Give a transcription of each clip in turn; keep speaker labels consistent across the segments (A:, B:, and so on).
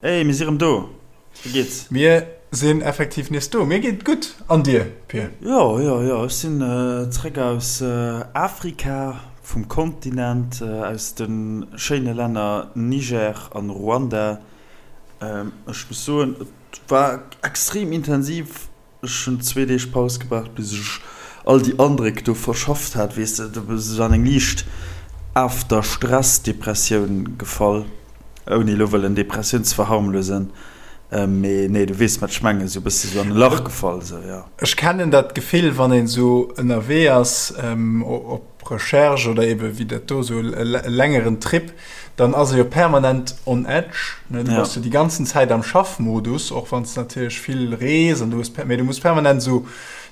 A: Hey, mir si rëm do. Wéi geet's?
B: Mir sinn effektiv nees do. Mir geet et gutt. An dir, Pir?
A: Jo, jo, jo. Ech sinn zréck aus Afrika, vum Kontinent, aus de schéine Länner Niger an Ruanda. Ech muss soen, et war extrem intensiv. Ech hunn zwee Deeg Paus gebraucht, bis ech all déi Andréck do verschafft hat. Weess de, du bass esou an eng liicht After-Stress-Depressioun gefall, ouni elo wëllen Depressioun ze verharmlosen, mee nee, du weess, wat ech mengen, esou e bësse sou an e Lach gefall, esou, jo.
B: Ech kennen dat Gefill, wann een esou ënnerwee ass, op Recherche oder ebe wéi dat do esou e längeren Trip, dann ass e jo permanent on edge, ne? Du bass jo déi ganzen Zäit am Schaffmodus, och wann s de natierlech vill rees an du hues, mee du muss permanent esou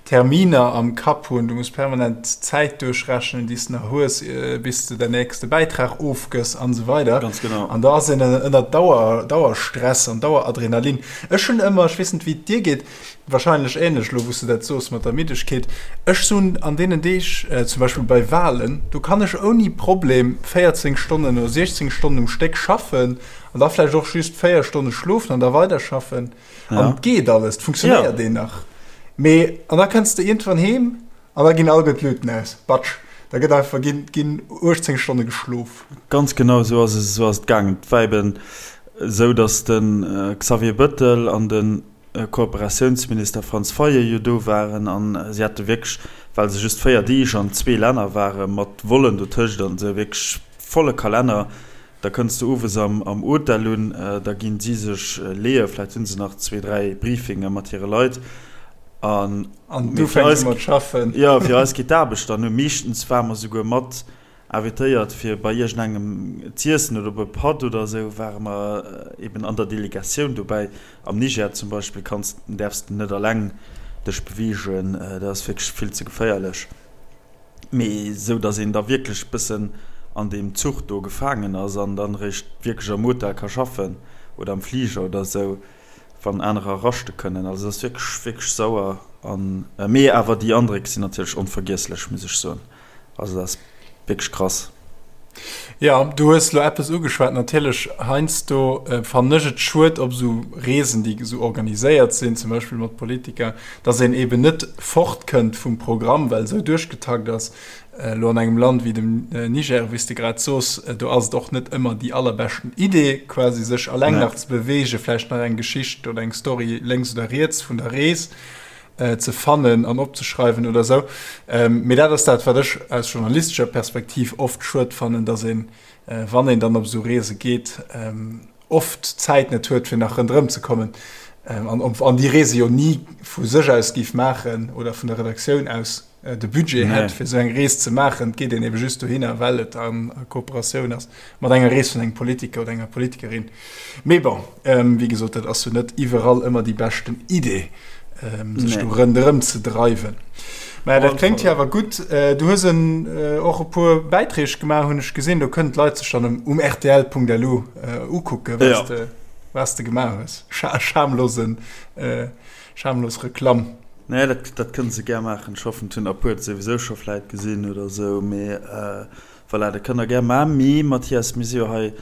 B: Terminer am Kapp hunn, du muss permanent d'Zäit duerchrechnen, déi s de nach hues, bis de däin nächste Bäitrag ofgëss an esou weider.
A: Ganz genau.
B: An da ass een ënner Dauer, Dauerstress an Daueradrenalin. Ech hunn ëmmer, ech weess net wéi et dir geet, Wahrscheinlech ähnlech elo wou s de dat soos mat der Middegkeet. Ech sun an deenen Deeg, zum Beispill bei Wahlen, do kann ech ouni Problem 14 Stonnen oder 16 Stonnen um Stéck schaffen an da vläicht och just 4 Stonne schlofen an da weiderschaffen an et geet alles, et funktionéiert een nach. Mee an da kënns de iergendwann heem an da ginn alleguer d'Luuten aus, batsch, da gëtt einfach ginn ginn 18 Stonne geschlof.
A: Ganz genau esou ass es, esou ass et gaangen. Et war eben esou, datt de Xavier Bëttel an de Kooperatiounsminister Franz Fayot jo do waren an si hate wierklech, well se just 4 Deeg an zwee Länner waren, mat Vollen dotëscht an esou, wierklech volle Kalenner. Da kënns de owes am Hotel un, da ginn si sech leeë, vläicht hu se nach zwee, dräi Briefinge mat hire Leit
B: an An du fänks u mat schaffen.
A: Jo, fir eis geet d'Aarbecht dann u. Meeschtens ware mer souguer mat Invitéiert fir bei iergendengem z'iessen oder op e Patt oder esou, ware mer eben an der Delegatioun dobäi. Am Niger zum Beispill kanns, däerfs de net alleng dech beweegen, dat ass wierklech vill ze geféierlech. Mee esou, datt een da wierklech bëssen an deem Zuch do gefaangen ass an dann eréischt wierklech am Hotel ka schaffen oder am Fliger oder esou, wann anerer raschte kënnen. Also dat ass wierklech, wierklech sauer an, mee awer déi Andréck sinn natierlech onvergiesslech, muss ech soen. Also dat ass wierklech krass.
B: Jo, du hues elo eppes ugeschwat. Natierlech, heiansdo fannen ech et schued op esou Reesen, déi esou organiséiert sinn, zum Beispill mat Politiker, datt een eeben net fortkënnt vum Programm, well esou duerchgetakt ass. Elo an engem Land wéi dem Niger, wéi s de grad soos, do ass et och net ëmmer déi allerbeschten Idee, quasi sech alleng nach ze beweegen, vläicht nach eng Geschicht oder eng Story lénks oder riets vun der Rees. ze fannen an opzeschreiwen oder sou. Mee dat ass dat, wat ech aus journalistescher Perspektiv oft schued fannen, datt een, wann een dann op esou Reese geet, oft d'Zäit net huet, fir nach ronderëm ze kommen an an déi Reese jo ni vu sech aus géif maachen oder vun der Redaktioun aus de Budget hätt, fir esou eng Rees ze maachen. Et geet een ebe just dohinner, well et a Kooperatioun ass mat enger Rees vun engem Politiker oder enger Politikerin. Mee bon, wéi gesot, dat ass jo net iwwerall ëmmer déi beschten Idee, sech do ronderëm ze dreiwen. Mä dat kléngt jo awer gutt. Du hues en och e puer Bäiträg gemaach, hunn ech gesinn. Do kënnen d'Leit sech dann um rtl.lu ukucken, wat s de gemaach hues. Schamlosen, schamlos Reklamm.
A: Nee, dat, dat kënne se gär maachen. Ech hoffen, et hunn der e puer et souwisou scho vläit gesinn oder esou. Mee voilà, dat kënnt der gär maachen. Mee Mathias, mir si jo hei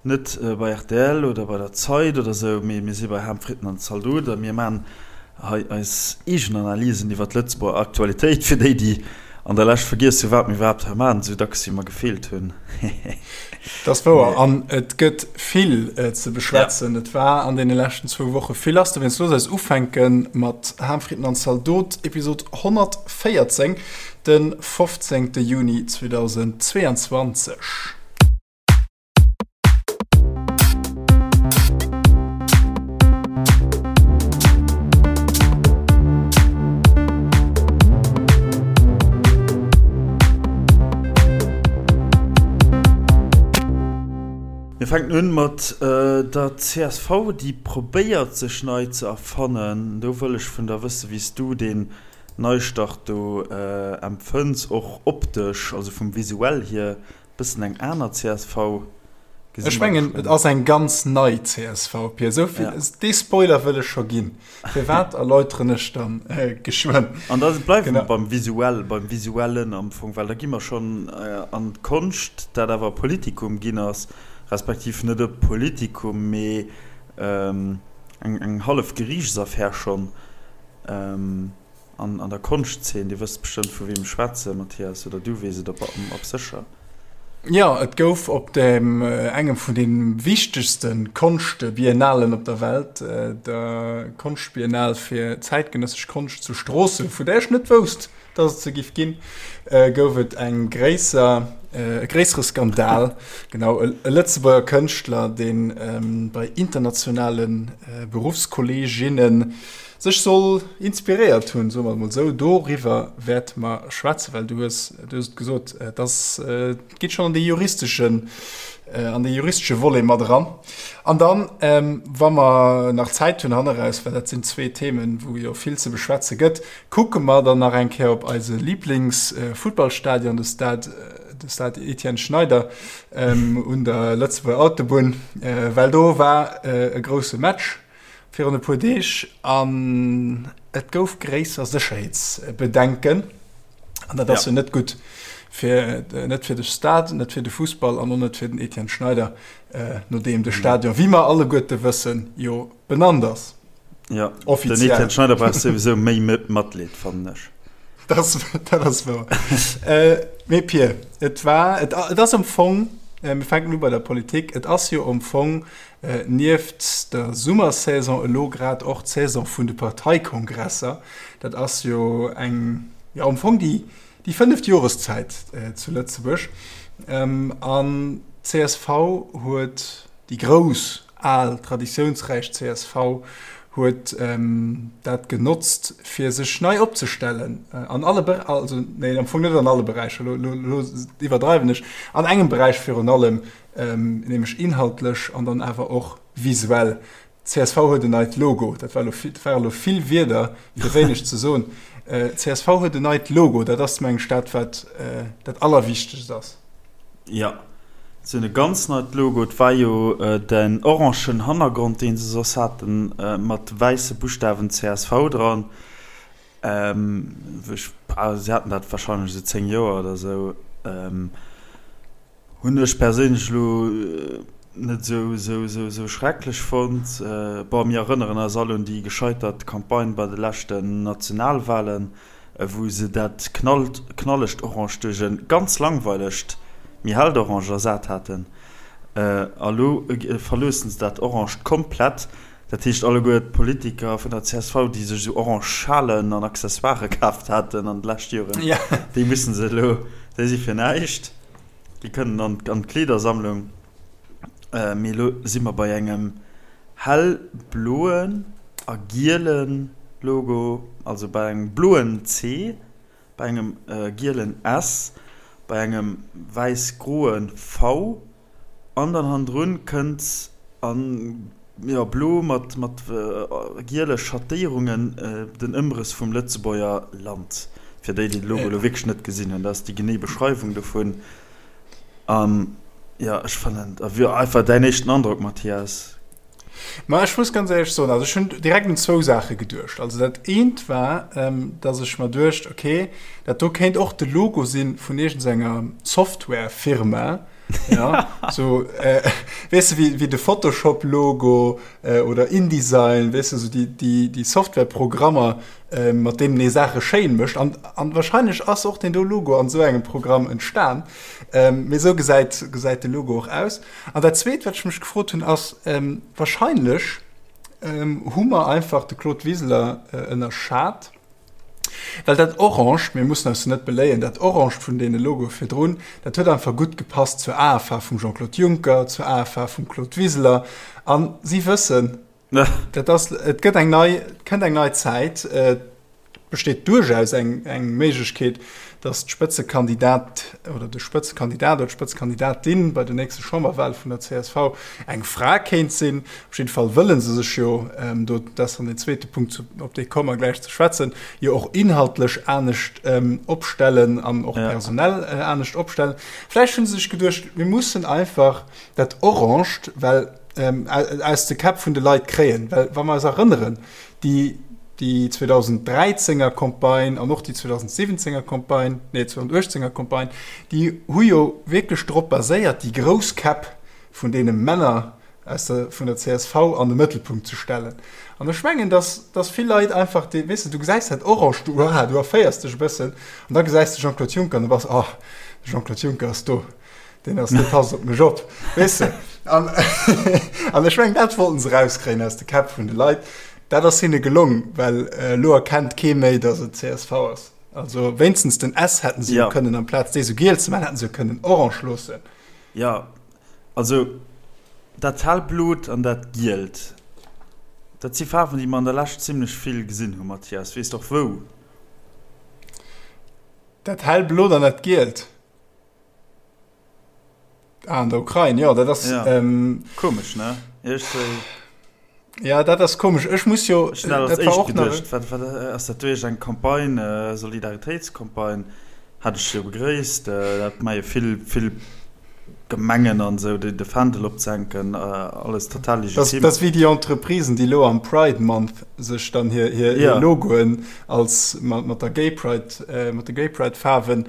A: net bei rtl oder bei der Zeit oder esou, mee mir si bei Ham, Fritten an Zaldot a mir maachen hei eis eegen Analysen iwwer d'Lëtzebuerger Aktualitéit, fir déi, déi an der Lescht vergiess hu wat mir iwwerhaapt hei maachen, esou dacks wéi mer gefeelt hunn.
B: Dat ass wouer an et gëtt vill ze beschwätzen. Et war an deene leschten zwou Woche vill lass. Dowéinst looss eis ufänke mat Ham, Fritten an Zaldot, Episod 114, de 15. Juni 2022.
A: Mir fänken un mat der csv, déi probéiert sech nei ze erfannen. Do wëll ech vun der wëssen, wéi s du deen Neistart do empfënns, och optesch, also vum Visuell hier. Bëssen eng aner csv
B: gesinn. Ech mengen et ass eng ganz nei csv, Pir. Esou vill, ja. Dee Spoiler wëll ech scho ginn. Firwat erläuteren ech dann äh, geschwënn.
A: An da bleiwe mer beim Visuell, beim Visuellen am Fong, well da gi mer schonn äh, an d'Konscht, dat awer Politikum ginn ass, respektiv net e Politikum, mee. eng eng hallef Geriichtsaffär schonn an an der Konschtzeen. Dir wësst bestëmmt vu weem ech schwätzen, Mathias, oder du weess et op op sécher.
B: Jo, et gouf op dem engem vun de wichtegste Konschtbiennalen op der Welt, der Konschtbiennale fir zäitgenëssesch Konscht zu Stroossen, vu där ech net wousst, dass et se giff ginn, gouf et eng gréisser, e gréissere Skandal. Genau, e Lëtzebuerger Kënschtler, dee bei internationale Beruffskolleeginne sech soll inspiréiert hunn, soe mer et mol esou. Doriwwer wäerte mer schwätzen, well du hues, du hues et gesot, et ass, et geet schonn an dee juristeschen, an dee juristesche Volet mat eran. An dann, wa mer nach Zäit hunn hanneraus, well dat sinn zwee Themen, wou jo vill ze beschwätze gëtt, Kucke mer dann nach eng Kéier op eise Liiblingsfuttballstadion, de Stade, de Stade Etienne Schneider un der Lëtzebuerger Autobunn, well do war e grousse Match virun e puer Deeg an et gouf gréisser Sécherheetsbedenken. An dat ass jo net gutt fir, net fir de Stade, net fir de Fussball an och net fir den Etienne Schneider, nodeem de Stadion, wéi mer alleguerte wëssen, jo benannt ass.
A: Ja, offiziell. Den Etienne Schneider brauch souwisou méi Matleed, fannen ech.
B: Dat, dat ass wouer. äh, mee Pir, et war, et, et ass am Fong, äh, mir fänken u bei der Politik, et ass jo am Fong äh, nieft der Summersaison elo grad och d'Saison vun de Parteikongresser. Dat ass jo eng, ja am Fong déi, déi fënneft Joreszäit äh, zu Lëtzebuerg. Ähm, an d'CSV huet déi grouss Al, traditiounsräich csv huet dat genotzt, fir sech nei opzestellen an alle Be-, also nee, am Fong net an alle Beräicher, elo, elo, elo iwwerdreiwen ech, an engem Beräich virun allem, nämlech inhaltlech an dann awer och visuell. Csv huet en neit Logo. Dat war elo vill, dat ware elo vill Wierder, fir wéineg ze soen. Csv huet en neit Logo. Dat ass, meng ech, dat, wat dat Allerwichtegst ass.
A: Jo, se hunn e ganz neit Logo. Et war jo den orangen Hannergrond, deen se soss haten, mat wäisse Buschtawen csv dran. Ech, se haten dat warscheinlech esou 10 Joer oder esou. Hunn ech perséinlech elo net esou, esou, esou, esou schrecklech fonnt. Bon, mir erënneren eis all un déi gescheitert Campagne bei de leschten Nationalwahlen. wou se dat knallegt Orange duerch e ganz langweilegt, méi hellt Orange ersat haten. A lo verloossen se dat Orange komplett. Dat heescht, alleguer d'Politiker vun der csv, déi sech esou orange Schalen an Accessoirë kaaft haten an de leschte Joren, déi musse se elo, déi si fir näischt, déi kënnen an d'Kleedersammlung. Mee elo si mer bei engem hellbloen a giele Logo, also bei engem bloen C, bei engem gielen S, bei engem wäiss-groe V an dann hannendrun kënnt a jo blo mat mat giele Schattéierungen den Ëmrëss vum Lëtzebuerger Land. Fir déi, déi de Logo elo wierklech net gesinn hunn, dat ass déi genee Beschreiwung dovun. An jo, ech fannen, a wéi einfach däin éischten Androck, Mathias?
B: Ma ech muss ganz éierlech soen, also ech hunn direkt un zwou Saache geduecht. Also dat eent war, dass ech mer duecht, okay, dat do kéint och de Logo si vun iergendenger Softwarefirma, ja, sou, weess de, wéi de Photoshop-Logo oder InDesign, weess de, sou déi Softwareprogrammer, mat deenen ee Saache schéin mécht. An, an wahrscheinlech ass och deen do Logo an esou engem Programm entstan. Mee esou gesäit, gesäit de Logo och aus. An dat Zweet, wat ech mech gefrot hunn, ass, wahrscheinlech hu mer einfach de Claude Wiseler ënnerschat, well dat Orange, mir mussen eis jo net beléien, dat Orange vun deene Logoe virdrun, dat huet einfach gutt gepasst zur Aefaarf vum Jean-Claude Juncker, zur Aefaarf vum Claude Wiseler. A si wëssen, Dat ass, et gëtt eng nei, et kënnt eng nei Zäit. Et besteet duerchaus eng, eng Méiglechkeet, datt d'Spëtzekandidat oder de Spëtzekandidat oder d'Spëtzekandidatin bei den nächste Chamberwahle vun der csv eng Fra kéint sinn. Op jidde Fall wëlle se sech jo, do, dat ass dann deen zweete Punkt, zu, op dee komme mer gläich ze schwätzen, jo och inhaltlech anescht opstellen an och personell anescht opstellen. Vläicht hu se sech geduecht, mir mussen einfach dat Oranged, well aus de Käpp vun de Leit kréien. Well wa mer eis erënneren, déi, déi 2013er Campagne an och déi 2017er Campagne, nee 2018er Campagne, déi hu jo wierklech drop baséiert, déi grouss Käpp vun deene Männer. aus der, vun der csv an de Mëttelpunkt ze stellen. An ech mengen, dass, dass vill Leit einfach dee, weess de, du gesäis dat Orange, du, uah, du erféiers dech e bëssen an da gesäis de Jean-Claude Juncker an du bass, oh, de Jean-Claude Juncker ass do, deen ass, dee passt op mech op, weess de. An, an ech mengen, dat wollten se erauskréien aus de Käpp vun de Leit. Dat ass hinne gelong, well elo erkennt kee méi, dass et csv ass. Also wéinstens den S hätten se jo kënnen, amplaz dee sou giel ze maachen, hätten se jo kënnen orange loossen.
A: Jo, also dat hellblot an dat gielt, dat si Faarwen, déi mer an der Lescht zimlech vill gesinn hu, Mathias. Weess de och wou?
B: Dat hellblot an dat gielt? Ah, an der Ukrain, jo, dat ass.
A: Ja. Ähm, komesch, ne? Iergendwéi.
B: Ja, dat ass komesch. Ech muss jo.
A: Ech hunn dat als éischt geduecht. Wat, wat ass dat duerch eng Campagne, äh, Solidaritéitscampagne? Hat ech jo begréisst. Äh, dat maache jo vill, vill Gemengen an esou, de, de Fändel opzehänken, äh, alles total
B: legitim. Dat ass wéi déi Entreprisen, déi elo am Pride Month sech dann hir, hir, hir Logoen als mat, mat der Gay Pride, äh, mat de Gay Pride Faarwen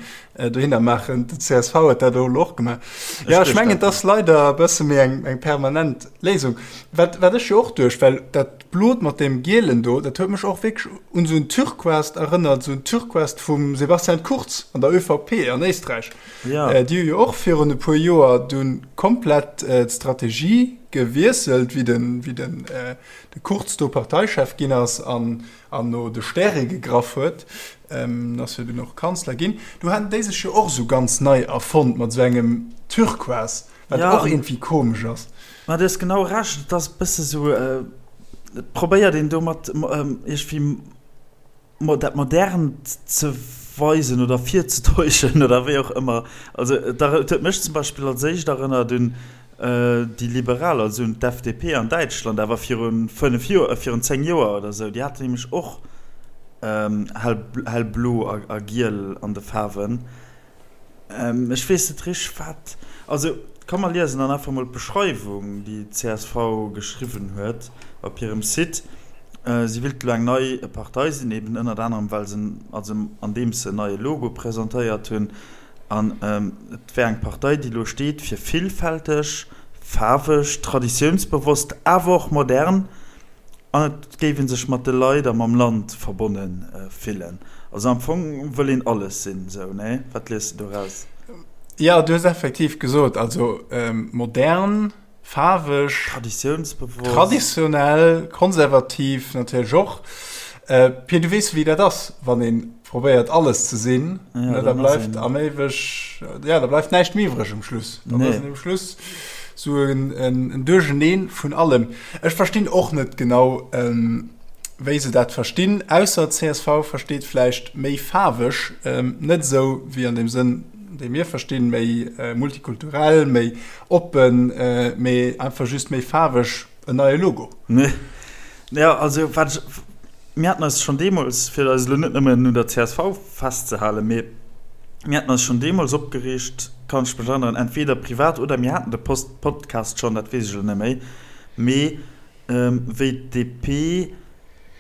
B: dohinner maachen. De csv huet dat elo och gemaach. Ja, ech mengen, et ass leider e bësse méi eng, eng permanent Léisung. Wat, wat ech jo och duecht, well dat Blot mat deem Gielen do, dat huet mech och wierklech un esou en Turquoise erënnert, esou en Turquoise vum Sebastian Kurz an der ÖVP an Éisträich.
A: Ja.
B: Déi hu jo och virun e puer Joer dunn komplett d'Strategie gewiesselt, wéi den, wéi den, de Kurz do Parteichef ginn ass an an no de Stäre gegraff huet, ass jo dunn och Kanzler ginn, do haten déi sech jo och esou ganz nei erfonnt mat esou engem Turquoise, wat och iergendwéi komesch ass.
A: Ma du hues genau Recht, et ass e bësse sou, et probéiert een domat iergendwéi dat Modernt ze weisen oder virzetäuschen oder wéi och ëmmer. Also et huet mech zum Beispill als éischt erënnert un Déi Liberal, also un d'FDP an Däitschland, awer viru 5 Joer, virun 10 Joer oder esou, déi haten nämlech och hell, hellblo a giel an de Faarwen. Ech weess net richteg, wat, also komm mer liesen dann einfach mol d'Beschreiwung, déi d'CSV geschriwwen huet op hirem Site. Si wéilt elo eng nei Partei sinn, eben ënnert anerem well se, also andeems se en neie Logo presentéiert hunn. An et wär eng Partei, déi elo steet fir villfälteg, faarweg, traditiounsbewosst, awer och modern. An et géif ee sech mat de Leit a mam Land verbonne fillen. Also am Fong wëll een alles sinn, esou, nee? Wat liest de doraus?
B: Jo, du hues effektiv gesot, also modern, faarweg,
A: Traditiounsbewosst.
B: Traditionell, konservativ natierlech och. Pir, du weess wéi dat ass, wann ee probéiert alles ze sinn, ja, da bleift am éiweg, ja, da bleift näischt méi iwwreg um Schluss. Dann ass um Schluss sou en, en, en Duercheneen vun allem. Ech verstinn och net genau, ähm, wéi se dat verstinn, ausser csv versteet vläicht méi faarweg, ähm, net esou wéi an deem Sënn, dee mir verstinn, méi multikulturell, méi oppen, mee einfach just méi faarweg, en neie Logo.
A: Nee. Ja, also wat ech, mir haten eis schonn deemools, fir eis elo net nëmmen un der csv festzehalen, mee mir haten eis schonn deemools opgereegt, kann ech mech erënneren, entweder privat oder mir haten de Post Podcast schonn, dat weess ech elo net méi, mee wéi d'DP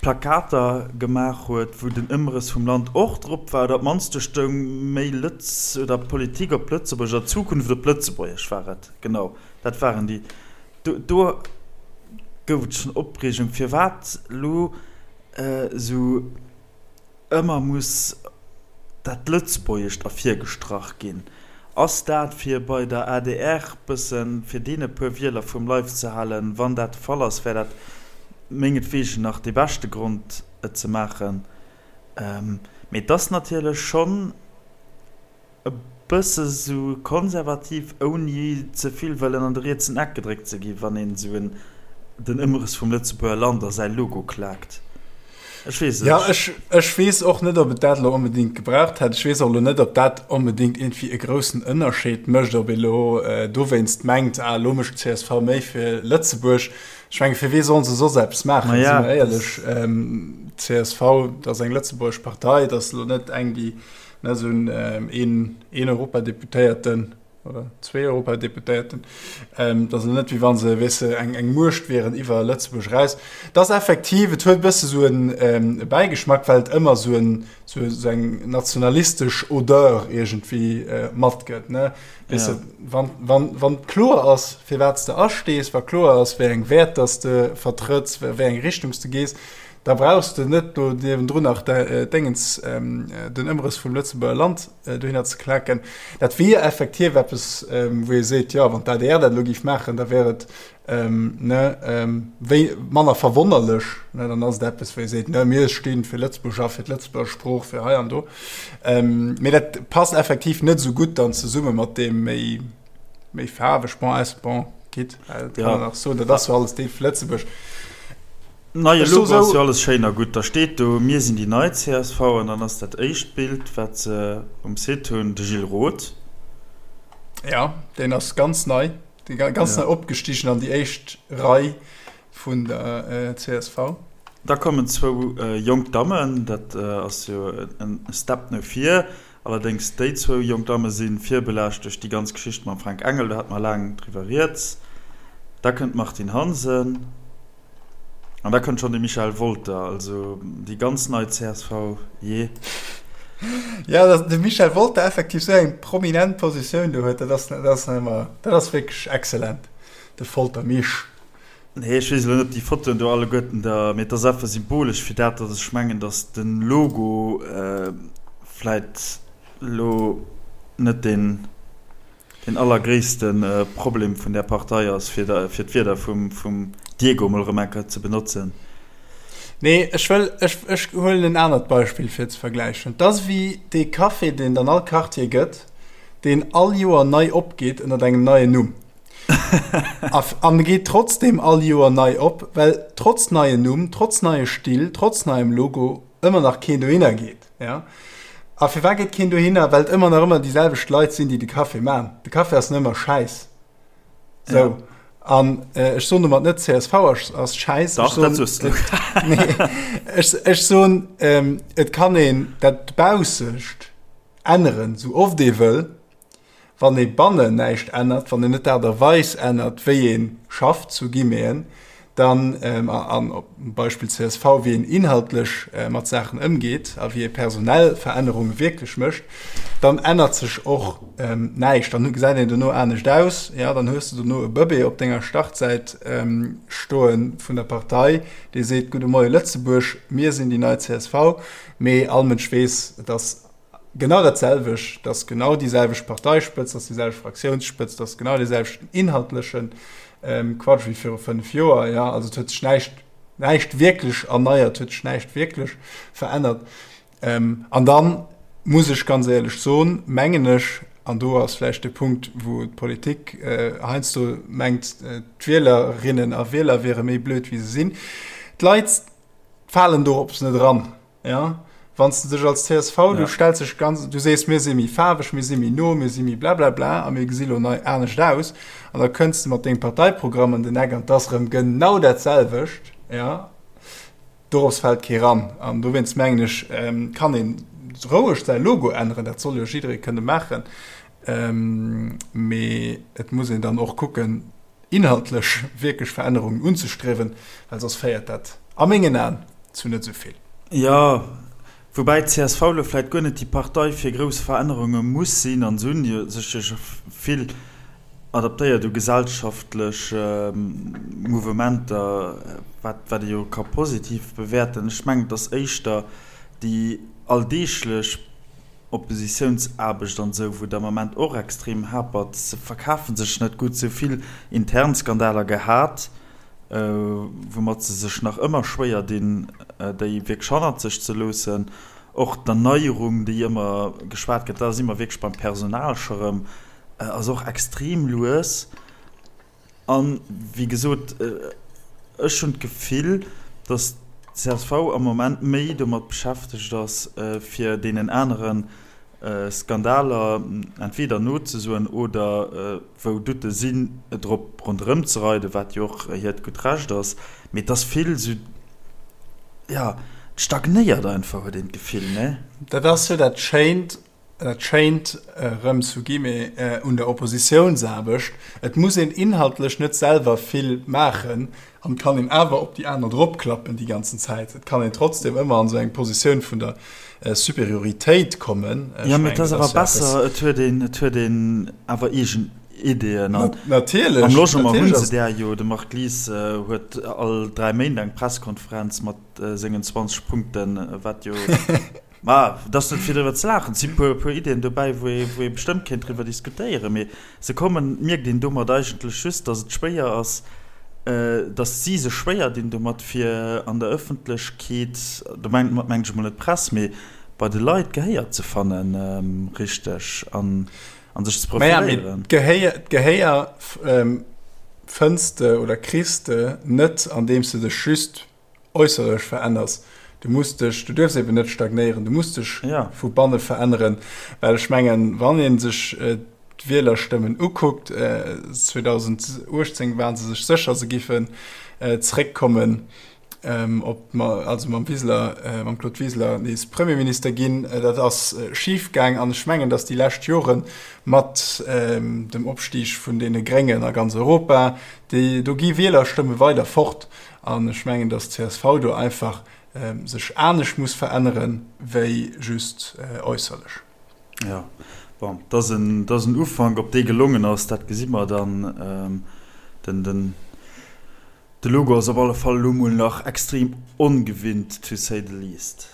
A: Plakater gemaach huet, wou den Ëmrëss vum Land och drop war, oder op d'mannst do stoung méi Lëtz oder Politik op Lëtzebuergesch oder Zukunft op Lëtzebuergesch war et, genau, dat waren déi. Do, do gouf et schonn Opreegung, firwat elo esou Ëmmer muss dat Lëtzbuergescht ervirgestrach ginn. Ass dat fir bei der adr bëssen fir deene puer Wieler vum Leif ze halen? Wann dat de Fall ass, wär dat mengetwegen nach dee beschte Grond et ze maachen. Mee et ass natierlech schonn. E bësse sou konservativ, ouni ze vill wëllen an de rietsen Eck gedréckt ze ginn, wann een sou en den Ëmrëss vum Lëtzebuerger Land a säi Logo klaakt. Ech weess et
B: Ja, ech, ech weess och net, ob et dat elo onbedéngt gebraucht hätt. Ech weess och elo net, ob dat onbedéngt iergendwéi e groussen Ënnerscheed mécht, ob ee elo dowéinst mengt, ah, elo mécht csv méi fir Lëtzebuerg. Ech menge fir wee sollen se soss eppes maachen, si mer éierlech. Csv, dat ass eng lëtzebuergesch Partei, dat ass elo net eng, déi Ne, esou een, een Europadeputéierten. oder zwee Europadeputéierten. Et ass elo net, wéi wa se, weess de, eng, eng Muecht wieren iwwer Lëtzebuerg eraus. Et ass effektiv, et huet e bësse sou en Bäigeschmack, well et ëmmer sou en, sou, sou eng nationalistesch Odeur iergendwéi matgëtt, ne? Weess de, wann, wann, wann kloer ass, firwat s de astees, wa kloer ass, wéi eng Wäerter s de vertrëtts, wéi eng Richtung s de gees, da brauchs de net do niewendrun nach d'Déngens, den Ëmrëss vum Lëtzebuerger Land dohinner ze klaken. Dat wier effektiv eppes, wou ee seet, jo, wann d'ADR dat elo géif maachen, da wär et ne, wéi manner verwonnerlech. Ne, dann ass et eppes, wou ee seet, ne, mir sti fir Lëtzebuerg a fir d'Lëtzebuerger Sprooch, fir hei an do. Mee dat passt effektiv net esou gutt dann zesumme mat deem méi, méi faarweg, bon, aus, bon, quitte, dat kann een nach soen, dat ass jo alles Deel vu Lëtzebuerg.
A: Neie Logo ass jo alles schéin a gutt. Da steet do Mir sinn déi nei csv an dann ass dat éischt Bild, wat se um Site hunn, de Gilles Roth.
B: Jo, deen ass ganz nei, ganz nei opgestigen an déi éischt Rei vun der csv.
A: Da kommen zwou jonk Dammen, dat ass jo e Step no vir. Allerdéngs déi zwou jonk Damme si virbelaascht duerch déi ganz Geschicht mam Fränk Engel, do hate mer laang driwwer rieds. Da kënnt d'Martine Hansen an da kënnt schonn de Michel Wolter, also déi ganz nei csv, jee.
B: Jo, datt de Michel Wolter effektiv esou eng prominent Positioun do huet, dat ass, dat ass nach ëmmer, dat ass wierklech excellent, de Folter Misch.
A: Nee, ech weess elo net, ob déi Fotoen do alleguerten da, mee et ass einfach symbolesch fir dat, datt ech mengen, datt de Logo vläit elo net deen, deen allergréisste Problem vun där Partei ass, fir fir d'Wierder vum, vum Diego emol erëm eng Kéier ze benotzen.
B: Nee, ech wëll, ech, ech huelen en anert Beispill fir ze vergläichen. Et ass ewéi dee Café, deen et an all Quartier gëtt, deen all Joer nei opgeet ënnert engem neien Numm. An geet trotzdem all Joer nei op, well trotz neien Numm, trotz neie Still, trotz neiem Logo ëmmer nach keen dohinner geet. Ja? A firwat geet keen dohinner? Well et ëmmer nach ëmmer déi selwecht Leit sinn, déi de Café man. De Café ass nach ëmmer schäiss. Sou. Ja. An äh, ech soen domat net csv ass, ass schäiss.
A: Dach, dat soos du.
B: Nee, ech, ech soen, ähm, et kann een dat Baussescht änneren, sou oft ee wëll. Wann ee bannen näischt ännert, wann een net d'Aart a Weis ännert, wéi ee schafft, zu Guillemeten, dann, an op Beispill csv, wéi een inhaltlech mat Saachen ëmgeet a wéi ee personell Verännerunge wierklech mécht, dann ännert sech och näischt. Dann gesäit een dono anescht aus, jo, dann hues de dono e Bëbee op denger Startsäit stoe vun der Partei, dee seet, Gudde Moie Lëtzebuerg, mir sinn déi nei csv. Mee all Mënsch weess, et ass Genau dat selwecht, dat ass genau déi selwecht Parteispëtzt, dat ass déi selwecht Fraktiounsspëtzt, dat ass genau dee selwechten inhaltleche Quatsch wéi viru 5 Joer. Jo, also et huet sech näischt, näischt wierklech erneiert, huet sech näischt wierklech verännert. An dann muss ech ganz éierlech soen, mengen ech, an do ass vläicht de Punkt, wou d'Politik heiansdo mengt, d'Wielerinnen a Wieler wiere méi blöd wéi se sinn, d'Leit falen dorops net eran. Ja, wann s de dech als csv, du stells dech ganz, du sees, mir si méi faarweg, mir si méi no, mir si méi blablabla a mir gesi lo nei anescht aus, an da kënns de mat dengem Parteiprogramm ëm den Eck an 't ass erëm genau dat selwecht, ja, dorops fält kee ran. An dowéinst mengen ech, kann ee roueg säi Logo änneren, dat soll jo jidderee kënne maachen, mee et muss een dann och kucken, inhaltlech wierklech Verännerungen unzestriewen, well soss féiert dat a mengen Aen zu net esou vill.
A: Jo, woubäi d'CSV elo vläicht guer net déi Partei fir grouss Verännerunge muss sinn, an se hunn jo sech jo scho vill adaptéiert u gesellschaftlech Mouvementer, wat wat ee jo ka positiv bewäerten. Ech mengen, et ass éischter déi alldeeglech Oppositiounsaarbecht an esou, wou et am Ament och extrem hapert. Se verkafe sech net gutt, se hu vill intern Skandaler gehat, woumat se sech nach ëmmer schwéier dinn, déi wierklech hannert sech ze loossen. Och d'Erneierung, déi ëmmer geschwat gëtt, da si mer wierklech beim Personal scho rëm, ass och extrem lues. An, wéi gesot, ech hunn d'Gefill, datt d'CSV am Moment méi domat beschäftegt ass, fir deenen anere Skandaler entweder nozesoen oder, wou Doute sinn, drop ronderëm ze reiden, wat jo och hiert gutt Recht ass. Mee et ass vill esou, jo, et stagnéiert einfach, huet een d'Gefill, ne?
B: Dat ass jo dat Schéint. dat Schéint erëm zu Guillemets un der Oppositiounsaarbecht, et muss een inhaltlech net selwer vill maachen an et kann een awer op déi aner dropklappen déi ganzen Zäit. Et kann een trotzdem ëmmer an esou eng Positioun vun der Superioritéit kommen.
A: Jo, mee et ass awer besser, et huet een, et huet een awer eegen Ideeën. An
B: Natierlech,
A: am Logement hu se där jo. De Marc Lies huet all 3 Méint eng Presskonferenz mat sengen 20 Punkten, wat jo, ma et ass net fir driwwer ze laachen, et si puer, puer Ideeën dobäi, wou ee, wou ee bestëmmt kéint driwwer diskutéieren, mee se kommen, mierkt een domat eigentlech just, datt et schwéier ass, datt si sech schwéier dinn domat, fir an der Ëffentlechkeet, do mengt mengen ech emol net d'Press, mee bei de Leit Gehéier ze fannen, richteg, an an sech ze
B: profiléieren. Maja, mee d'Gehéier fënns de oder kriss de net, andeems de dech just äusserlech veränners. Du muss dech, du duerfs eben net stagnéieren, du muss dech vu banne veränneren, well ech mengen, wann ee sech d'Wielerstëmmen ukuckt, 2018 ware se sech sécher, se giffen zréckkommen op, also mam Wiseler, mam Claude Wiseler nees Premierminister ginn. Dat ass schif gaang an ech mengen, datt déi lescht Jore mat dem Opstig vun deene Gréngen a ganz Europa, déi, do gi Wielerstëmme weider fort. An ech mengen, datt d'CSV do einfach sech anescht muss verännere wéi just äusserlech.
A: Jo, bon, et ass en, et ass en Ufank. Ob dee gelongen ass, dat gesi mer dann. Den, den, de Logo ass op alle Fall elo mol nach extrem ongewinnt, to say the least.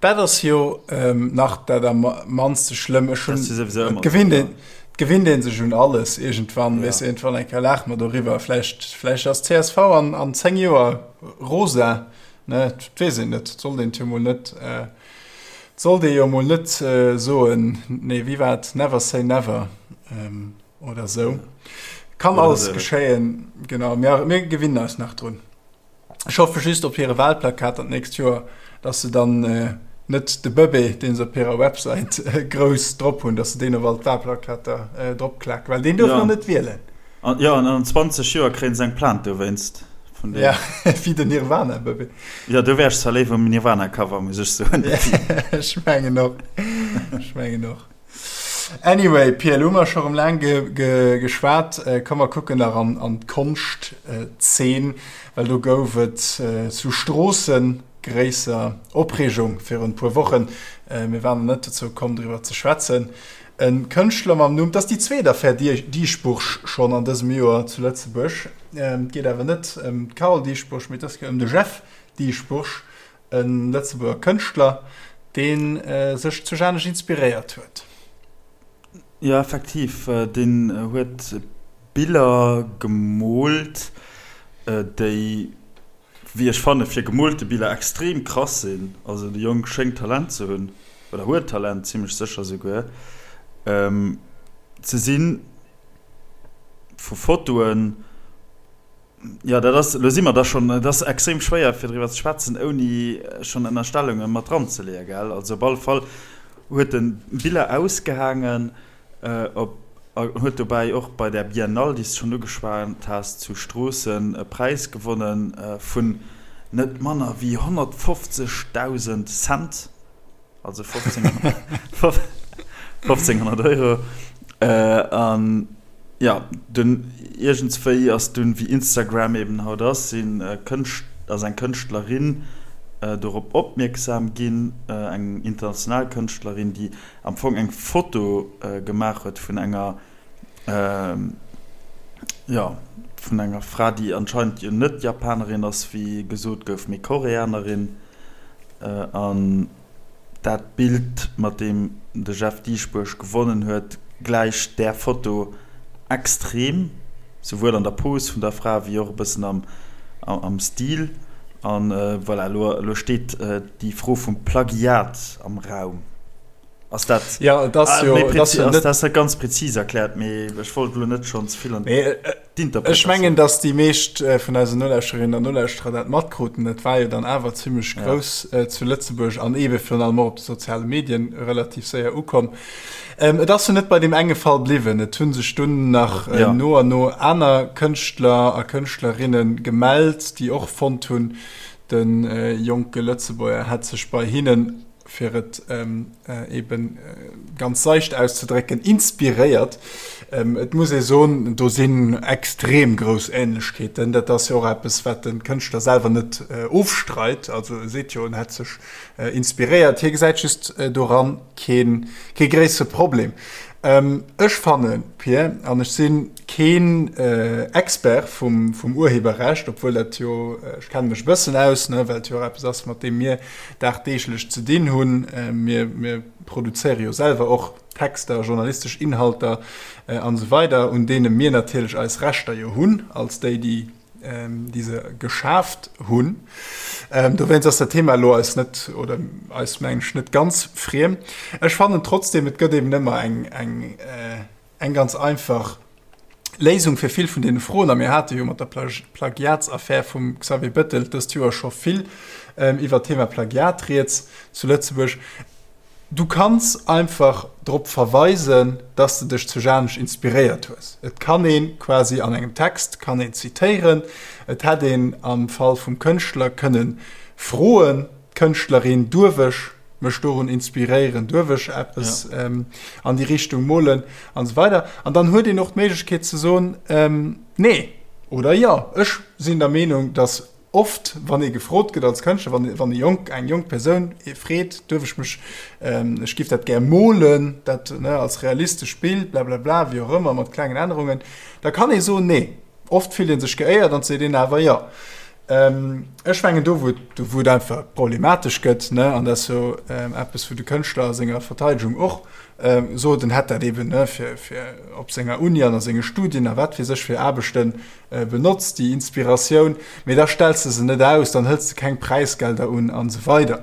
B: Dat ass jo nach dat am mannste schlëmm. Ech hunn, et gewinnt een, et gewinnt een sech un alles iergendwann, weess de, iergendwann eng Kéier laache mer doriwwer. Vläicht, vläicht ass csv an, an 10 Joer rosa, ne, et weess een net. Et sollt een et jo mol net, et sollt ee jo mol net soen, nee, wéi war et, never say never oder esou. Kann alles geschéien, genau, mir, mir gewinnen eis nach drun. Ech hoffe just op hire Wahlplakater d'nächst Joer, dass se dann net de Bëbee, dee se op hirer Websäit grouss drop hunn, dass se deen op all d'Wahlplakater dropklaken, well deen duerf nach net wielen.
A: Jo, an an 20 Joer kréien se eng Plainte dowéinst
B: vun deem. Ja, wéi den Nirvana-Bëbee.
A: Jo, do wär ech zwar léiwer um Nirvana-Cover, muss ech soen.
B: Ech mengen och. Ech mengen och. Anyway, Pia, elo hu mer scho rëm laang geschwat. Komm mer kucken nach an d'Konschtzeen, well do gouf et zu Stroossen gréisser Opreegung virun e puer Wochen. Mir waren nach net dozou komm, driwwer ze schwätzen. E Kënschtler mam Numm, et ass déi zweet Affär Dieschbourg schonn an dësem Joer zu Lëtzebuerg. Et geet awer net ëm d'Carole Dieschbourg, mee et ass ëm de Jeff Dieschbourg, E Lëtzebuerger Kënschtler, dee sech zu Janesch inspiréiert huet.
A: Jo, effektiv, deen huet Biller gemoolt, déi, wéi ech fannen, fir gemoolte Biller extrem krass sinn. Also de Jong schéngt Talent ze hunn, oder huet Talent, zimmlech sécher souguer. Ze sinn vu Fotoen. Jo, dat ass, elo si mer da schonn, et ass extrem schwéier fir driwwer ze schwätzen, ouni schonn Ënnerstellunge mat dranzeleeën, gell? Also op alle Fall huet en Biller ausgehaangen op a huet dobäi och bei där Biennale, déi s de schonn ugeschwat has, zu Stroossen e Präis gewonnen vun net manner wéi 150.000 Cent. Also 1500 Euro. An jo, dunn iergendswéi ass dunn, wéi Instagram eben haut ass, sinn Kënscht, ass eng Kënschtlerin dorop opmierksam ginn, eng international Kënschtlerin, déi am Fong eng Foto gemaach huet vun enger, jo, vun enger Fra, déi anscheinend jo net Japanerin ass, wéi gesot gouf, mee Koreanerin. An dat Bild, mat deem de Jeff Dieschbourg gewonnen huet, gläicht där Foto extrem, souwuel an der Pose vun der Fra wéi och e bëssen am Stil. An voilà, elo steet déi Fro vum Plagiat am Raum. Ass dat
B: ja, et ass jo,
A: et ass jo net, ass net ganz präzis erkläert, mee ech wollt elo net schonn ze vill an
B: d'Interpretatioun. Ech mengen, datt déi meescht vun eisen Nolauschterinnen an Nolauschterer dat matkruten. Dat war jo dann awer zimmlech grouss zu Lëtzebuerg an eebe virun allem och op de soziale Medien relativ séier ukomm. Et ass jo net bei deem enge Fall bliwwen. Et hu sech dunn nach no an no aner Kënschtler a Kënschtlerinne gemellt, déi och fonnt hunn, de jonke Lëtzebuerger hätt sech bei hinnen. fir et eben ganz seicht auszedrécken, inspiréiert. Et muss ee soen, do sinn extrem grouss Ähnlechkeeten. Dat ass jo och eppes, wat de Kënschtler selwer net ofstreit. Also e seet jo, en hätt sech inspiréiert. Hie gesäit just doran kee gréissere Problem. Ech fannen, Pir, an ech si keen Expert vum Urheberrecht, obwuel dat jo, ech kenne mech e bëssen aus, ne, well et jo och eppes ass, mat deem mir dagdeeglech ze dinn hunn. Mir produzéiere jo selwer och Texter, journalistesch Inhalter an esou weider, un deene mir natierlech eis Rechter jo hunn, als déi, déi déi se geschaaft hunn. Dowéinst ass dat Thema elo eis net, oder eis mengen ech, net ganz friem. Ech fannen trotzdem, et gëtt eben ëmmer eng, eng, eng ganz einfach Léisung fir vill vun deene Froen. A mir hate jo mat der Plagiatsaffär vum Xavier Bettel dëst Joer scho vill iwwert d'Thema Plagiat rieds zu Lëtzebuerg. Du kanns einfach drop verweisen, dass de dech zu Janesch inspiréiert hues. Et kann ee quasi an engem Text kann een zitéieren. Et hätt een am Fall vum Kënschtler kënne froen, d'Kënschtlerin, Duerf ech mech dorun inspiréieren? Duerf ech eppes an déi Richtung molen? An esou weider. An dann huet een och d'Méiglechkeet ze soen, Nee oder Jo. Ech sinn der Meenung, dass Oft, wann ee gefrot gëtt als Kënschtler, wann, wann e jonk, eng jonk Persoun ee freet, duerf ech mech, ech giff dat gär molen, dat, ne, als realistesch Bild, blablabla, wéi och ëmmer, mat klengen Ännerungen, da kann ee soen, nee. Oft fillt ee sech geéiert an seet een awer jo. Ech mengen, do wou et, do wou et einfach problematesch gëtt, ne, an dat ass jo eppes, wou de Kënschtler a senger Verteidegung och sot, en hätt dat eben, ne, fir, fir op senger Uni an a senge Studien a wat weess ech fir Aarbechten, Benotz déi Inspiratioun, mee da stells de se net aus, dann hëls de keng Präisgelder un an esou weider.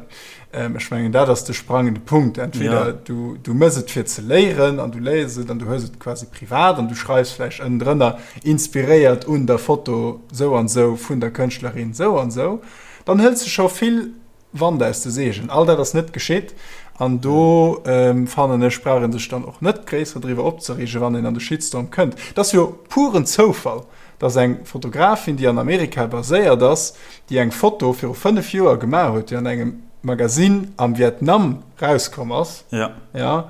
B: Ech mengen, dat ass de sprangende Punkt. Entweder du, du mëss et fir ze léieren an du léiers et an du hues et quasi privat an du schreifs vläicht ënnendrënner, inspiréiert un der Foto sou an sou vun der Kënschtlerin sou an sou, dann hëls de scho vill Wand aus de Seegen. All dat ass net geschitt an do fannen ech, brauch ee sech dann och net gréisser driwwer opzereegen, wann een an de Shitstorm kënnt. Et ass jo puren Zoufall, dass eng Fotografin, déi an Amerika baséiert ass, déi eng Foto viru 5 Joer gemaach huet, déi an engem Magasinn am Vietnam rauskomm ass, jo,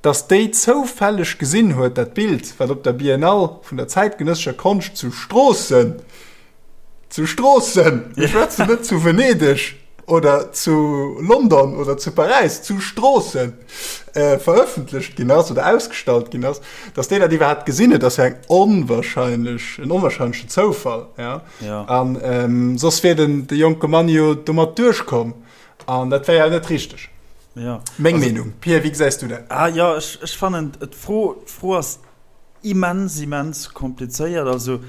B: dass déi zoufälleg gesinn huet, dat Bild, wat op der Biennale vun der zäitgenëssescher Konscht zu Stroossen, Zu Stroossen! Mir schwätzen net zu Venedeg oder zu London oder zu Paräis, zu Stroossen verëffentlecht ginn ass oder ausgestallt ginn ass, datt déi dat iwwerhaapt gesinn huet, ass jo eng onwahrscheinlech, en onwahrscheinlechen Zoufall. Ja.
A: Ja.
B: An ähm, soss wier den, de jonke Mann jo domat duerchkomm. An dat wär jo net richteg.
A: Ja.
B: Meng also, Meenung. Pierre, wéi gesäis du dat?
A: Ah, ja, ech, ech fannen, d'Fro, d'Fro ass Immens, immens komplizéiert. Also,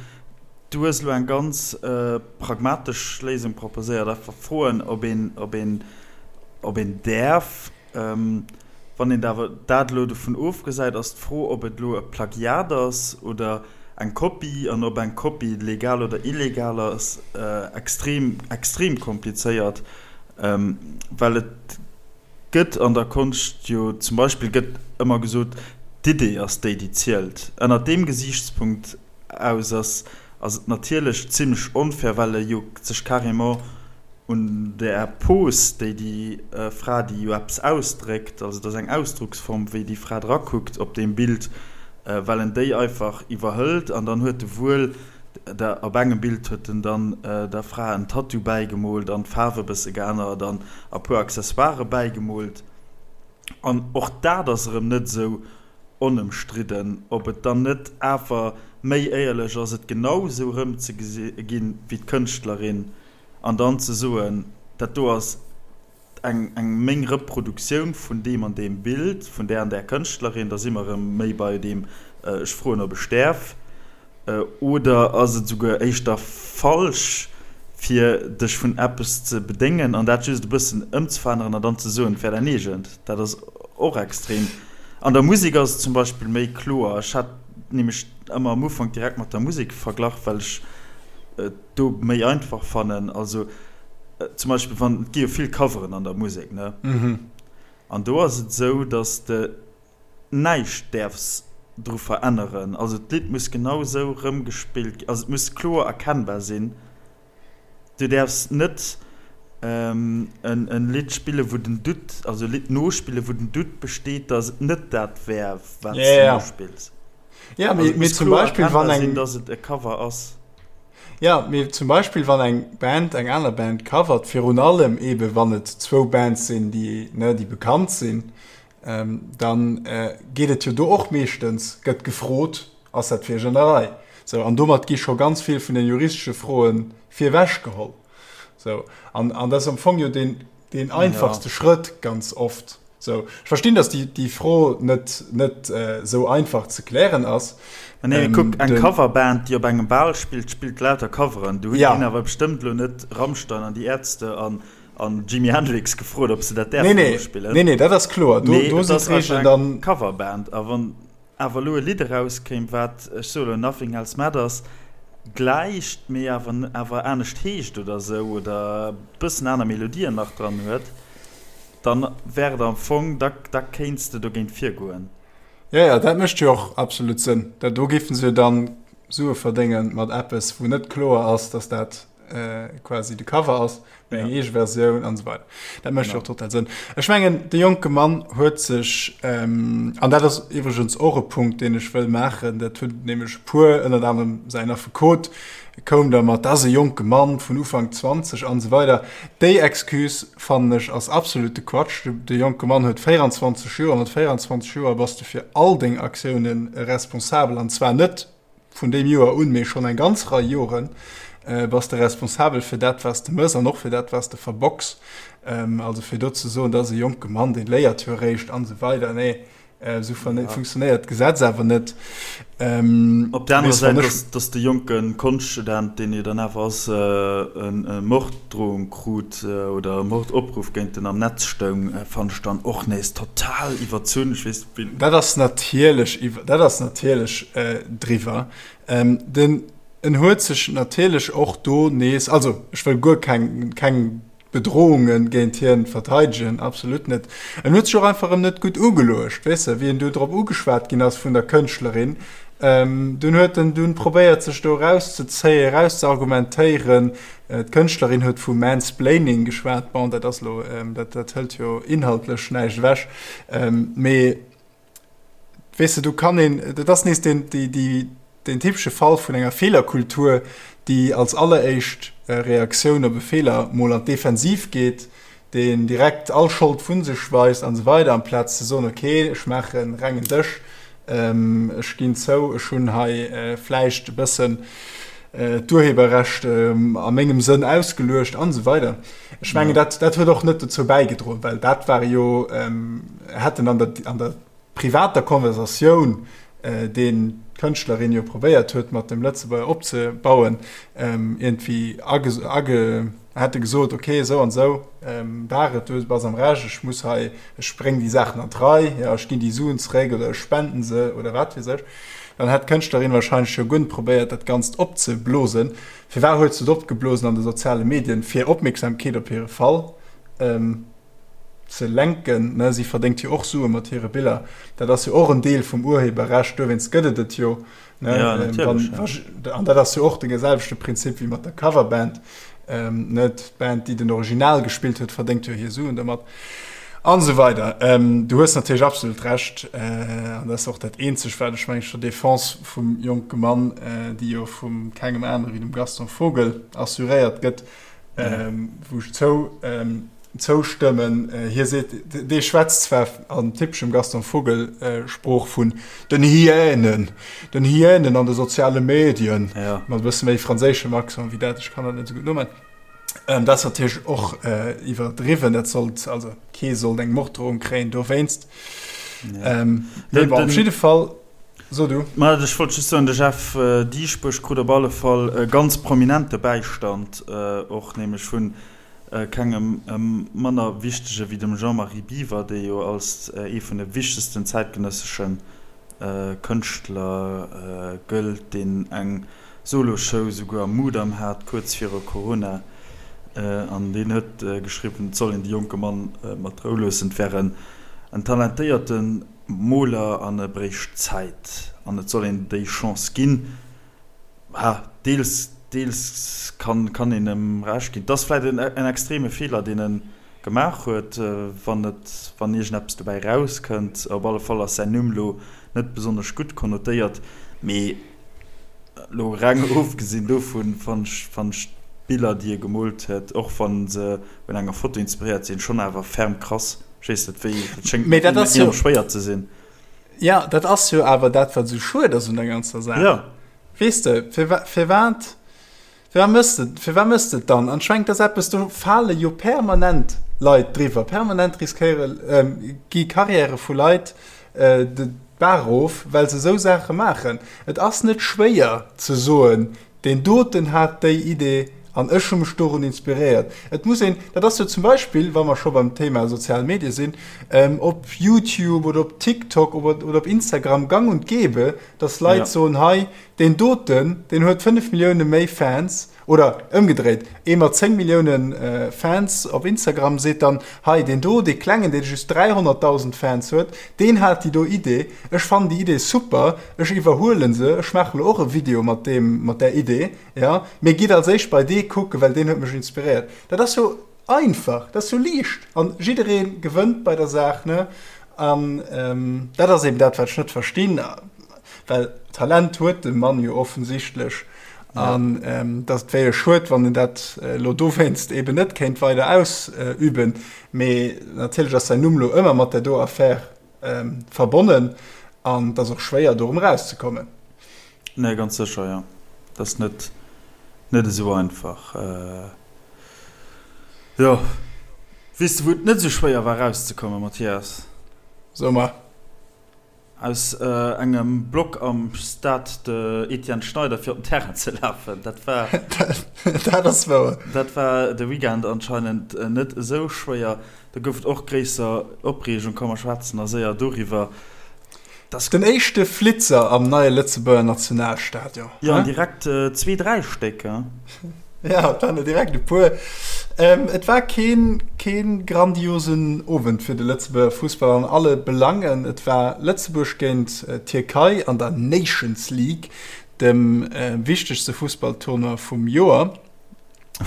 A: du hues elo eng ganz pragmatesch Léisung proposéiert, einfach froen, ob een, ob een, ob een däerf. Wann een awer dat elo dovun ofgesäit, ass d'Fro, ob et elo e Plagiat ass oder eng Kopie an ob eng Kopie legal oder illegal ass, extrem, extrem komplizéiert, well et Gëtt an der Konscht jo zum Beispill gëtt ëmmer gesot, d'Idee ass déi, déi zielt. Ënnert deem Gesiichtspunkt aus ass ass et natierlech zimlech onfair, well e jo sech carrément un der Pose, déi déi Fra, déi jo eppes ausdréckt, also et ass eng Ausdrucksform, wéi déi Fra drakuckt op deem Bild, well en déi einfach iwwerhëlt an dann huet e wuel Der, op engem Bild huet en dann der Fra en Tattoo bäigemoolt an d'Faarf e bësse geännert an a puer Accessoiren bäigemoolt. An och dat ass erëm net esou onëmstridden, ob et dann net awer méi éierlech ass, et genau esou erëmzeginn wéi d'Kënschtlerin an dann ze soen, dat do ass eng eng meng Reproduktioun vun deem an deem Bild vun där an där Kënschtlerin, da si mer erëm méi bei deem ech froen ob ech däerf, oder ass et esouguer éischter falsch fir dech vun eppes ze bedéngen an dat just e bëssen ëmzeveränneren an dann ze soen et wär däin eegent? Dat ass och extrem. An der Musek ass et zum Beispill méi kloer. Ech hat nämlech ëmmer am Ufank direkt mat der Musek verglach, well ech et do méi einfach fannen. Also zum Beispill wann, et gi jo vill Coveren an der Musek, ne? An do ass et esou, datt de näischt däerfs dru veränneren. Also d'Lidd muss genau esou rëmgespillt ginn, also et muss kloer erkennbar sinn. Du däerfs net. En Lidd spillen, wou den Doute, also e Lidd nospillen, wou den Doute besteet, datt et net dat wär, wat s de nospills.
B: Ja, mee, mee zum Beispill, wann eng.
A: Sinn, datt et e Cover ass.
B: Ja, mee zum Beispill, wann eng Band eng aner Band covert, virun allem eebe wann et zwou Bands sinn, déi, ne, déi bekannt sinn, dann geet et jo do och meeschtens, gëtt gefrot, Ass dat fir iech an der Rei? Sou, an domat gi scho ganz vill vun den juristesche Froe virwech geholl. Sou, an, an dat ass am Fong jo deen, deen einfachste ja. Schrëtt ganz oft. Sou, ech verstinn, dass déi, déi Fro net, net äh, sou einfach ze klären ass.
A: Ma nee, ähm, kuck, eng Coverband, déi op engem Bal spillt, spillt lauter Coveren. Du hunn ja. awer bestëmmt lo net Rammstein an déi Ärzte an an Jimi Hendrix gefrot, ob se dat
B: däerfen nee, nee. spillen. Nee, nee, dat ass kloer.
A: Do, nee, do sinn d'Regeln dann. Coverband. A wann awer elo e Lidd erauskéim, wat, ech soe elo Nothing Else Matters gläicht, mee awer awer anescht heescht oder esou oder e bëssen aner Melodien nach dran huet, dann wär et am Fong, da da kéints de dogéint virgoen.
B: Jo, jo, dat mécht jo och absolut Sënn. Dat do géife se jo dann Sue verdénge mat eppes, wou net kloer ass, datt dat quasi de Cover ass, mee eng eege Versioun an esou weider. Dat mécht jo och total Sënn. Ech mengen, de jonke Mann huet sech, an dat ass iwwregens och e Punkt, deen ech wëll maachen, dat hunn nämlech e puer, ënnert anerem säin Affekot koum da mat, dat ass e jonke Mann vun Ufank 20 an esou weider. Déi Excuse, fannen ech, ass absolute Quatsch. De jonke Mann huet 24 Joer. Mat 24 Joer bass de fir all deng Aktioune responsabel, an zwar net Vun deem Joer un, mee schonn eng ganz Rei Joren, bass de responsabel fir dat, wat s de mëss an och fir dat, wat s de verbocks. Also fir do ze soen, dat ass e jonke Mann, dee léiert jo eréischt an esou weider, nee, esou funktionéiert d'Gesetz awer net.
A: Op der anerer Säit, datt de jonke Konschtstudent, deen jo dann awer ass, e Morddrohung krut oder e Mordopruff géint en am Netz stoung, fannen ech dann och nees total iwwerzunn. Ech weess.
B: Dat ass natierlech iwwer, dat ass natierlech driwwer. Den, en huet sech natierlech och do nees, also ech wëll guer keng, keng Bedrohunge géint hien verteidegen, absolut net. En huet sech och einfach erëm net gutt ugeluecht, weess de, wéi en du drop ugeschwat ginn ass vun der Kënschtlerin. Dunn huet en dunn probéiert sech do erauszezéien, erauszeargumentéieren. D'Kënschtlerin huet vu Mansplaining geschwat. Bon, dat ass elo, dat, dat hëlt jo inhaltlech näischt ewech. Mee weess de, do kann een, dat ass nees deen, déi, déi, deen typesche Fall vun enger Feelerkultur, déi als alleréischt Reaktioun op e Feeler mol an d'Defensiv geet, deen direkt all Schold vu sech weist an esou weider, amplaz ze soen, okay, ech maache rengen Dësch, ech ginn zou, ech hunn hei vläicht e bëssen d'Urheberrecht a mengem Sënn ausgeluecht an esou weider. Ech mengen, dat, dat huet och net dozou bäigedroen, well dat ware jo, hätten an der, an der privater Konversatioun, deen d'Kënschtlerin jo probéiert huet mat dem Lëtzebuerger opzebauen, iergendwéi age, hätte gesot, ok, esou an esou war et, du bass am Recht, ech muss hei, ech bréng déi Saachen an d'Rei, jo, ech ginn déi Suen zeréck oder ech spenden se oder wat weess ech, dann hätt d'Kënschtlerin wahrscheinlech jo guer net probéiert, dat Ganzt opzeblosen. Firwat huet se et opgeblosen an de soziale Medien? Fir Opmierksamkeet op hire Fall ze lenken, ne? Si verdéngt jo och Sue mat hire Biller, dat ass jo och en Deel vum Urheberrecht, dowéinst gëtt et et jo. Ne?
A: Ja, natierlech, ja.
B: An dat ass jo och de selwechte Prinzip wéi mat der Coverband. Ähm, net d'Band, déi den Original gespillt huet, verdéngt jo hir Suen domat. An esou weider. Ähm, du hues natierlech absolut Recht. Äh, an dat ass och dat eenzegt, wat ech mengen, zur Defense vum jonke Mann, äh, déi jo vum kengem anere wéi dem Gaston Vogel assuréiert gëtt, ähm, wou ech zou, ähm, zoustëmmen. Hie seet, dee schwätzt zwar an typeschem Gaston Vogel Sprooch vun den Hyänen, den Hyänen an de soziale Medien, mat e bësse méi franséischem Accent wéi dat, ech kann dat net esou gutt nomaachen. Dat ass natierlech och iwwerdriwwen, dat sollt, also kee sollt eng Morddrohung kréien dowéinst. Mee bon, op jidde Fall, so du.
A: Ma ech wollt just soen, de Jeff Dieschbourg krut op alle Fall e ganz prominente Bäistand och, nämlech vun Kengem manner wichtege wéi dem Jean-Marie Biwer, dee jo als ee vun de wichtegsten zäitgenëssesche Kënschtler gëllt, deen eng Solo-Show souguer am Mudam hat, kuerz viru Corona. An deen huet geschriwwen, et soll een de jonke Mann mat Rou loossen, et wär en talentéierte Moler an e bréicht Zäit an et soll een déi Chance ginn. Ha, deels. Deels kann kann een em Recht ginn. Et ass vläit en en extreme Feeler, deen e gemaach huet, wann et wann iergendeppes dobäi erauskënnt. Op alle Fall ass säin Numm lo net besonnesch gutt konnotéiert. Mee lo reng ofgesinn dovun fann ech fann ech d'Biller, déi e gemoolt huet, och wann se un enger Foto inspiréiert sinn, schonn awer ferm krass. Ech weess net wéi, dat schéngt
B: Mee dat ass jo.
A: enorm schwéier ze sinn.
B: Jo, dat ass jo awer dat, wat esou schued ass un der ganzer Saach.
A: Jo.
B: Weess de, firwat, firwat mëss de, firwat mëss de et dann? An ech mengen, et ass eppes, do fale jo permanent Leit driwwer, permanent riskéiere, gi Karriäre vu Leit de Baach erof, well se esou Saache maachen. Et ass net schwéier ze soen, deen doten hat déi Idee an ech hu mech dorun inspiréiert. Et muss een, dat ass jo zum Beispill, wa mer scho beim Thema sozial Medie sinn, op YouTube oder op TikTok oder op Instagram gang und gäbe, dass Leit soen, hei deen doten, deen huet 5 Millioune méi Fans, oder ëmgedréit, ee mat 10 Millioune Fans op Instagram seet dann, hei deen do, dee klengen, dee just 300.000 Fans huet, deen hat déi do Idee, ech fannen déi Idee super, ech iwwerhuele se, ech maache lo och e Video mat deem, mat där Idee, jo, mee gitt als éischt bei dee kucken, well deen huet mech inspiréiert. Dat ass jo Einfach, dat ass jo liicht an jidderee gewënnt bei der Saach, ne? An dat ass eben dat, wat ech net verstinn, well Talent huet de Mann jo offensichtlech an dass et wär jo schued, wann en dat elo dowéinst eben net kéint weider ausüben. Mee natierlech ass säin Numm elo ëmmer mat där do Affär verbonnen an et ass och schwéier, do erëm erauszekommen.
A: Nee, ganz sécher, jo. Dat ass net, net esou einfach. Jo. Weess de, wou et net esou schwéier war erauszekommen, Mathias?
B: So mer.
A: Aus engem Block am Stade de Etienne Schneider fir op den Terrain ze lafen. Dat war.
B: Dat ass wouer.
A: Dat war de Weekend anscheinend net esou schwéier. Do gouf et och gréisser Opreegung. Komm mer schwätzen da séier doriwwer.
B: Dass. Den éischte Flitzer am neie Lëtzebuerger Nationalstadion.
A: Jo, an direkt zwee, dräi Stéck, he?
B: Ja, et waren der direkt e puer. Et war keen, keen grandiosen Owend fir de Lëtzebuerger Fussball an alle Belangen. Et war Lëtzebuerg géint d'Tierkei an der Nations League, dem wichtegste Fussballtournoi vum Joer.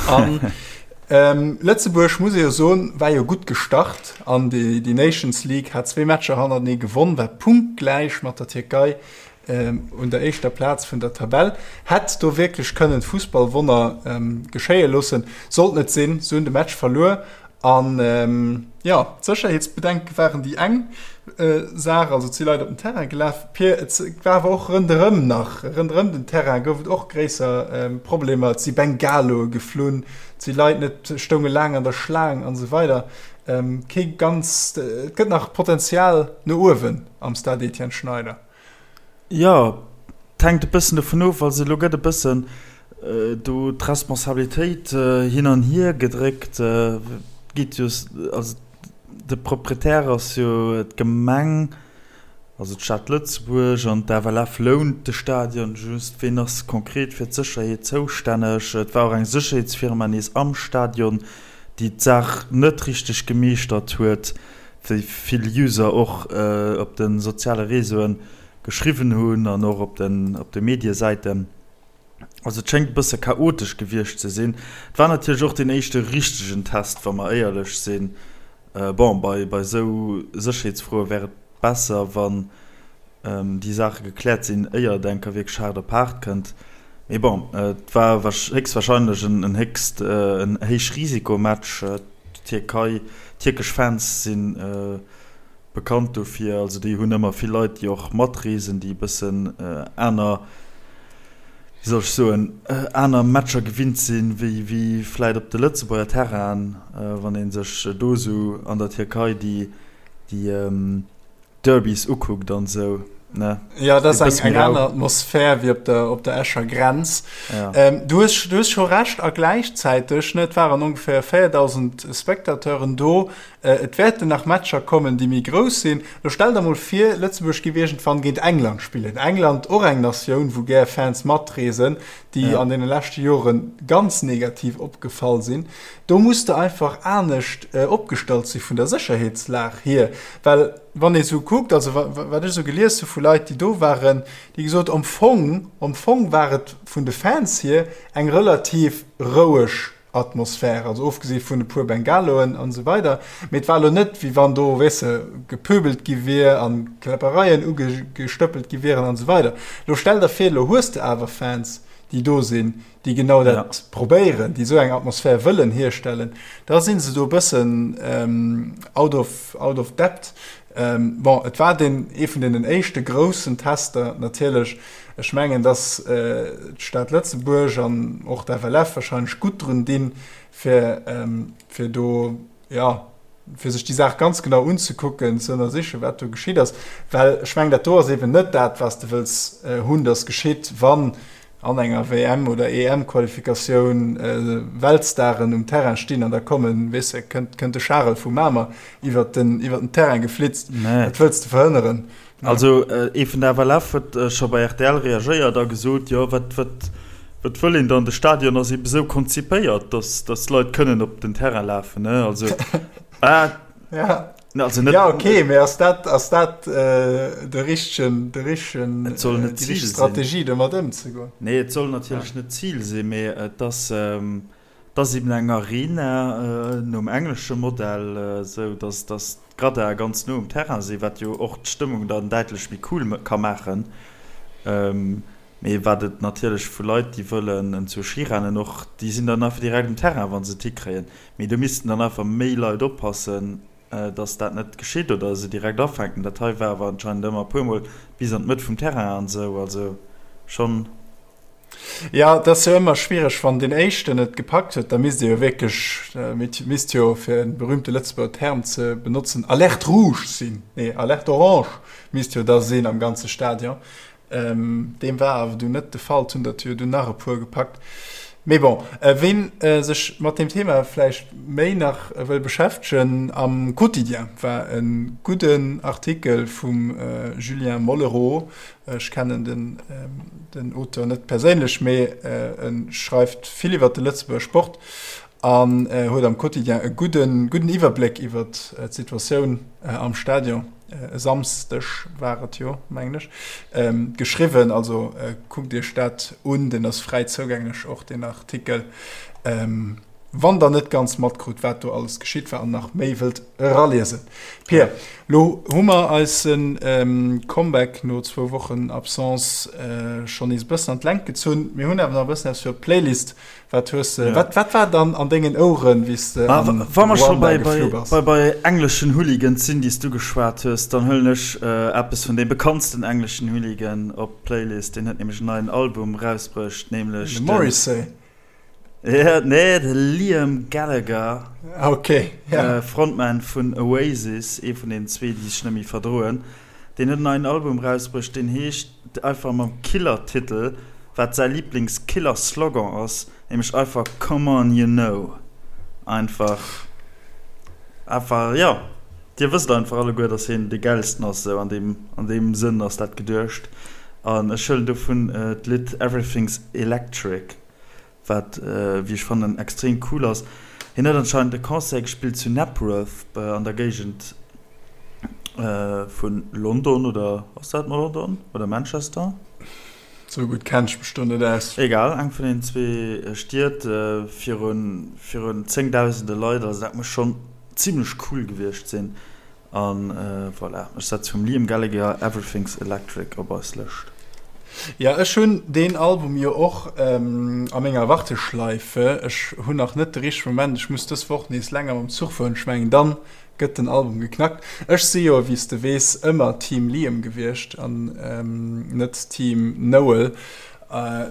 B: An Lëtzebuerg, muss ee jo soen, war jo gutt gestart an déi Nations League, hat zwee Matcher hannertenee gewonn, war punktgläich mat der Tierkei un der éischter Plaz vun der Tabell, hätt do wierklech kënnen d'Fussballwonner geschéie loossen, sollt net sinn, se hunn de Match verluer An jo, d'Sécherheetsbedenke waren déi eng Saach, also et si Leit op den Terrain gelaf. Pir et war awer och ronderëm nach, ronderëm den Terrain gouf et och gréisser Problemer. Et si Bengaloe geflunn, et si Leit net, stounge laang an der Schlaang an esou weider. Kee ganz, et gëtt nach Potenzial no uewen am Stade Etienne Schneider.
A: Jo, et hänkt e bëssen dovun of. Also elo gëtt e bëssen do d'Responsabilitéit hin an hier gedréckt. Et geet jo, also de Proprietär ass jo d'Gemeng, also d'Stad Lëtzebuerg, an d'FLF lount de Stadion just. Ween ass konkret fir d'Sécherheet zoustänneg? Et war och eng Sécherheetsfirma nees am Stadion, déi d'Saach net richteg gemeeschtert huet. wéi vill User och op de soziale Réseauen geschriwwen hunn an och op den op de Mediesäiten. Also et schéngt e bësse chaotesch gewiescht ze sinn. Et war natierlech och deen éischte richtegen Test, wa mer éierlech sinn. Bon, bei bei esou Sécherheetsfroe wär et besser, wann déi Saache gekläert sinn, éier et enker wierklech haart op haart kënnt. Mee bon, et war héchstwahrscheinlech en héchst en Héichrisikomatch. D'Tierkei, tierkesch Fans si bekannt dofir, also déi hunn ëmmer vill Leit, déi och matreesen, déi e bëssen aner, wéi soll ech soen, aner Matcher gewinnt sinn, wéi wéi vläit op de Lëtzebuerger Terrainen, wann ee sech do esou an der Tierkei déi déi Derbys ukuckt an esou, ne?
B: Ja, dat ass eng, eng aner Atmosphär wéi op der, op der Escher Grenz. Ja. Ähm, du hues, du hues scho Recht a gläichzäiteg, ne, et waren ongeféier 4.000 Spectateuren do. Äh, et wäerten nach Matcher kommen, déi méi grouss sinn. Lo stell der mol vir, Lëtzebuerg géif iergendwann géint England spillen. England, och eng Natioun, wou gär Fans matreesen, déi ja. an deene leschte Jore ganz negativ opgefall sinn. Do muss de einfach anescht äh, opgestallt si vun der Sécherheetslag hier, well. wann ee sou kuckt, also wat ech sou gelies hu vu Leit, déi do waren, déi gesot, am Fong, am Fong war et vun de Fans hier eng relativ roueg Atmosphär, also ofgesi vun e puer Bengaloen an esou weider, mee et war elo net, wéi wann do, weess de, gepöbelt gi wier a Kläppereien ugestëppelt gi wieren an esou weider. Lo stell der vir, lo hues de awer Fans, déi do sinn, déi genau dat probéieren, déi esou eng Atmosphär wëllen hierstellen, da si se do e bëssen out of, out of depth. Bon, et war deen, ee vun deenen éischte groussen Tester natierlech. Ech mengen, dass d'Stad Lëtzebuerg an och d'FLF wahrscheinlech gutt drun dinn, fir, fir do, jo, fir sech déi Saach ganz genau unzekucken, ze ënnersichen, wat do geschitt ass. Well ech mengen, dat do ass eeben net dat, wat s de wëlls hunn, dass geschitt, wann an enger WM oder EM-Qualifikatioun Weltstaren um Terrain stinn an da kommen, weess de, kënnt, kënnt de Charel vu Mamer iwwert den, iwwert den Terrain geflitzt. Dat wëlls de verhënneren.
A: Also ee vun der FLF huet scho bei rtl reagéiert a gesot, jo wat, wat, wat wëll een dann, de Stadion ass ebe sou konzipéiert, datt, datt d'Leit kënnen op den Terrain lafen, ne, also
B: ah, ja. Also net, ja okay, mee ass dat, ass dat de richtegen, de richtegen,
A: Et soll net
B: déi richteg Zil sinn. Strategie domat ëmzegoen?
A: Nee, et soll natierlech net d'Zil sinn, mee et ass, et ass eben eng Arena nom englesche Modell, esou datt, datt d'Graddae ganz no um Terrain sinn, wat jo och d'Stëmmung dann däitlech méi cool ka maachen. Mee wat et natierlech vu Leit, déi wëllen zur Ski rennen, och déi sinn dann einfach direkt um Terrain, wa se et hikréien. Mee do missten dann einfach méi Leit oppassen, dass dat net geschitt oder se direkt afänken. Dat hei war awer anscheinend ëmmer e puermol bis an d'Mëtt vum Terrain an esou, also schonn.
B: Jo, et ass jo ëmmer schwiereg, wann deen Éischten et gepackt huet, da misst ee jo wierklech, misst jo, fir e berühmte Lëtzebuerger Term ze benotzen, Alerte rouge sinn, nee, Alerte orange misst jo da sinn am ganze Stadion. Deem war awer dunn net de Fall, et hunn der jo dunn nach e puer gepackt. Mee bon, ween sech mat deem Thema vläicht méi nach wëll beschäftegen, am Quotidien war e gudden Artikel vum Julien Mollereau. Ech kennen den Auteur net perséinlech, mee e schreift vill iwwer de Lëtzebuerger Sport an huet am Quotidien e gudden Iwwerbléck iwwer d'Situatioun am Stadion. e Samsdeg war et jo, mengen ech, geschriwwen. Also kuckt iech dat un, deen ass fräi zougänglech, och deen Artikel, wann der net ganz matkrut, wat do alles geschitt war an nach méi wëllt eraliesen. Pir, lo hu mer eise Comeback no zwou Wochen Absence schonn nees e bëssen an d'Längt gezunn. Mir hunn awer nach e bëssen eppes fir op d'Playlist Wat hues de, wat, wat war dann an dengen Oueren, wéi s de
A: an Wa mer scho bei, bei, bei, bei engleschen Hooligans sinn, déi s du geschwat hues, dann huelen ech eppes vun deem bekanntsten engleschen Hooligan op d'Playlist. Deen huet nämlech en neien Album erausbruecht, nämlech
B: de. Morrissey?
A: Ja, nee, de Liam Gallagher.
B: Okay,
A: ja. Frontman vun Oasis, ee vun den zwee, déi sech net méi verdroen. Deen huet en neien Album erausbruecht, deen heescht einfach mam Killer-Titel, wat säi Liiblings-Killer-Slogan ass, nämlech einfach Come on you know. Einfach, einfach, jo, dir wësst einfach alleguer, dass hien dee Gäilsten ass, esou an deem, an deem Sënn ass dat geduecht. An ech huelen dovun d'Lidd Everything's Electric. Wat, wéi ech fannen, extrem cool ass. Hien huet anscheinend e Concert gespillt zu Napworth an der Géigend vu London, oder ass dat London oder Manchester?
B: Sou gutt kenn ech mech do net aus.
A: Egal, eng vun den zwee Stied, virun zéngdausende Leit. Also dat muss schonn zimmlech cool gewiescht sinn. An voilà, ech setze vum Liam Gallagher Everything's Electric op eis Lëscht.
B: Jo, ech hunn deen Album jo och a menger Warteschleife. Ech hunn nach net de richtege Moment. Ech muss dës Woch nees länger mam Zuch fueren. Ech mengen, dann gëtt den Album geknackt. Ech si jo, wéi s de weess, ëmmer Team Liam gewiescht an net Team Noel.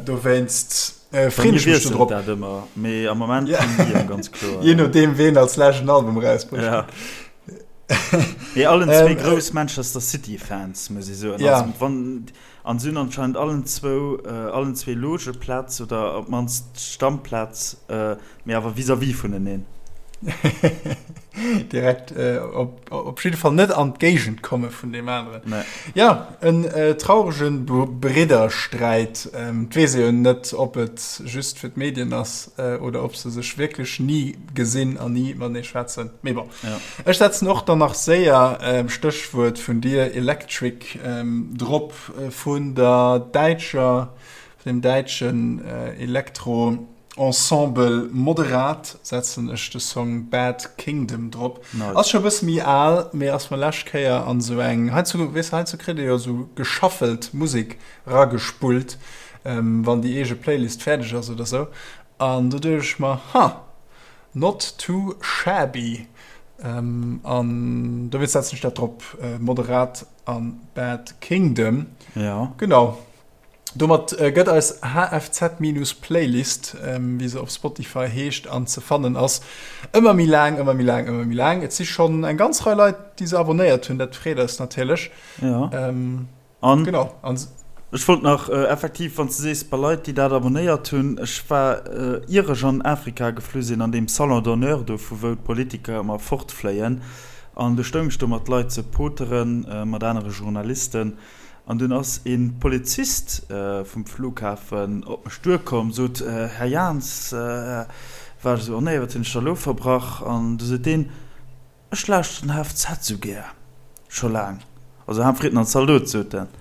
B: Dowéinst
A: freeën ech mech do drop. Dat ëmmer, mee am Moment Team Liam, ganz kloer.
B: Jee nodeem, ween als lescht en Album erausbrécht.
A: Mee allen zwee grouss Manchester City Fans, muss ech soen. Ja. Also, wann, an se hunn anscheinend allen zwou, allen zwee Logeplaz oder op d'mannst Stammplaz, mee awer vis-à-vis vuneneen.
B: Direkt op, op jidde Fall net an d'Géigend komme vun deem aneren. Nee. Ja, en trauregen Briddersträit. Et weess ee jo net, ob et just fir d'Medien ass oder ob se sech wierklech ni gesinn an ni matenee schwätzen. Mee bon. Ja. Ech setzen och dann nach séier, Stéchwuert vun dir, Electric, drop vun der däitscher, vun dem däitschen Elektro. Ensemble Moderat setzen ech de Song Bad Kingdom drop. Nice. Ass scho bësse méi al, mee ass mer lescht Kéier an sou eng, heiansdo, weess de, heiansdo kritt ee jo sou geshuffelt Musek ragespullt, wann déi eege Playlist fäerdeg ass oder sou. An do duecht ech mer, Ha, not too shabby. An dowéinst setzen ech dat drop, Moderat an Bad Kingdom.
A: Ja.
B: Genau. Domat gëtt eis HFZ-Playlist, wéi se op Spotify heescht an ze fannen ass, ëmmer méi laang, ëmmer méi laang, ëmmer méi laang. Et si schonn eng ganz Rei Leit, déi se abonnéiert hunn, dat freet eis natierlech.
A: Jo. An genau. An ech wollt nach effektiv, wann s de sees, bei Leit, déi dat abonnéiert hunn, ech war, ier ech an Afrika geflu sinn, an deem Salon d'honneur do, vu wou d'Politiker ëmmer fortfléien, an du stoung ech do mat Leit ze poteren, mat anere Journalisten, An dunn ass e Polizist vum Flughafen op mech duerkomm, sot, Här Jans, war ech esou, oh nee, wat hunn ech da elo verbrach? An du sot deen, Ech lauschteren HFZ esou gär, scho laang, also Haanfritten an Zaldot, sot en.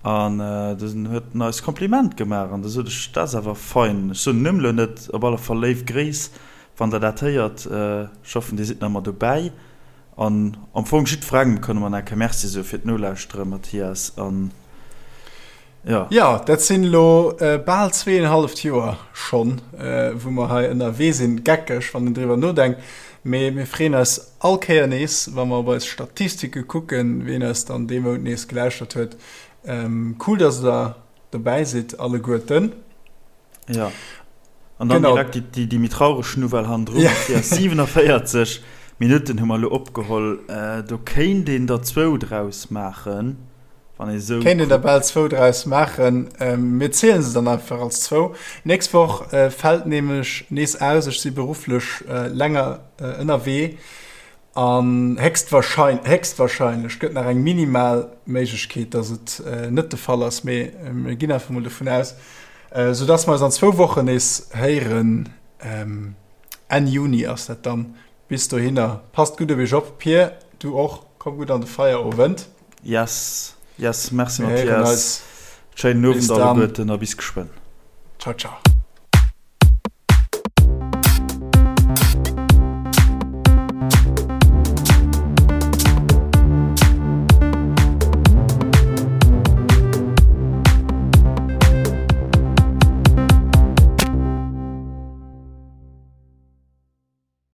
A: An dunn huet en eis Kompliment gemaach. An du sot ech, Dat ass awer fein. Ech soen den Numm elo net, op alle Fall léif Gréiss, wann Der dat héiert. Ech hoffen, Dir sidd nach ëmmer dobäi. An am Fong jiddwerengem kënne mer nach eng Kéier Merci soe fir d'Nolauschtere, Mathias. An
B: jo. Jo, dat sinn elo bal zweeënhalleft Joer schonn, wou mer hei ënnerwee sinn. Geckeg, wann een driwwer nodenkt. Mee mir freeën eis all Kéier nees, wa mer op eis Statistike kucken, wien eis dann dee Mount nees gelauschtert huet. Cool, dass der dobäi sidd alleguerten.
A: Ja. An dann genau. direkt déi, déi, déi méi traureg Nouvelle hannendrun. Ja. 47 Minutten hu mer elo opgeholl. Äh, do kéint een der zwou draus maachen,
B: wann ee sou. Kéint een der bal zwou draus maachen. Ähm, mir zielen se dann einfach als zwou. Nächst Woch äh, fält nämlech nees aus. Ech si berufflech äh, länger äh, ënnerwee. An héchstwahrscheinlech gëtt nach eng minimal Méiglechkeet, dass et net de Fall ass, mee mir ginn einfach mol dovun aus, soudass mer eis an zwou Wochen nees héieren. Enn Juni ass dat dann. Bis dohinner, passt gutt op iech op. Pir, du och, komm gutt an de Feierowend.
A: Yes, yes, merci Mathias. Schéinen Owend alleguerten a bis geschwënn.
B: Ciao, ciao.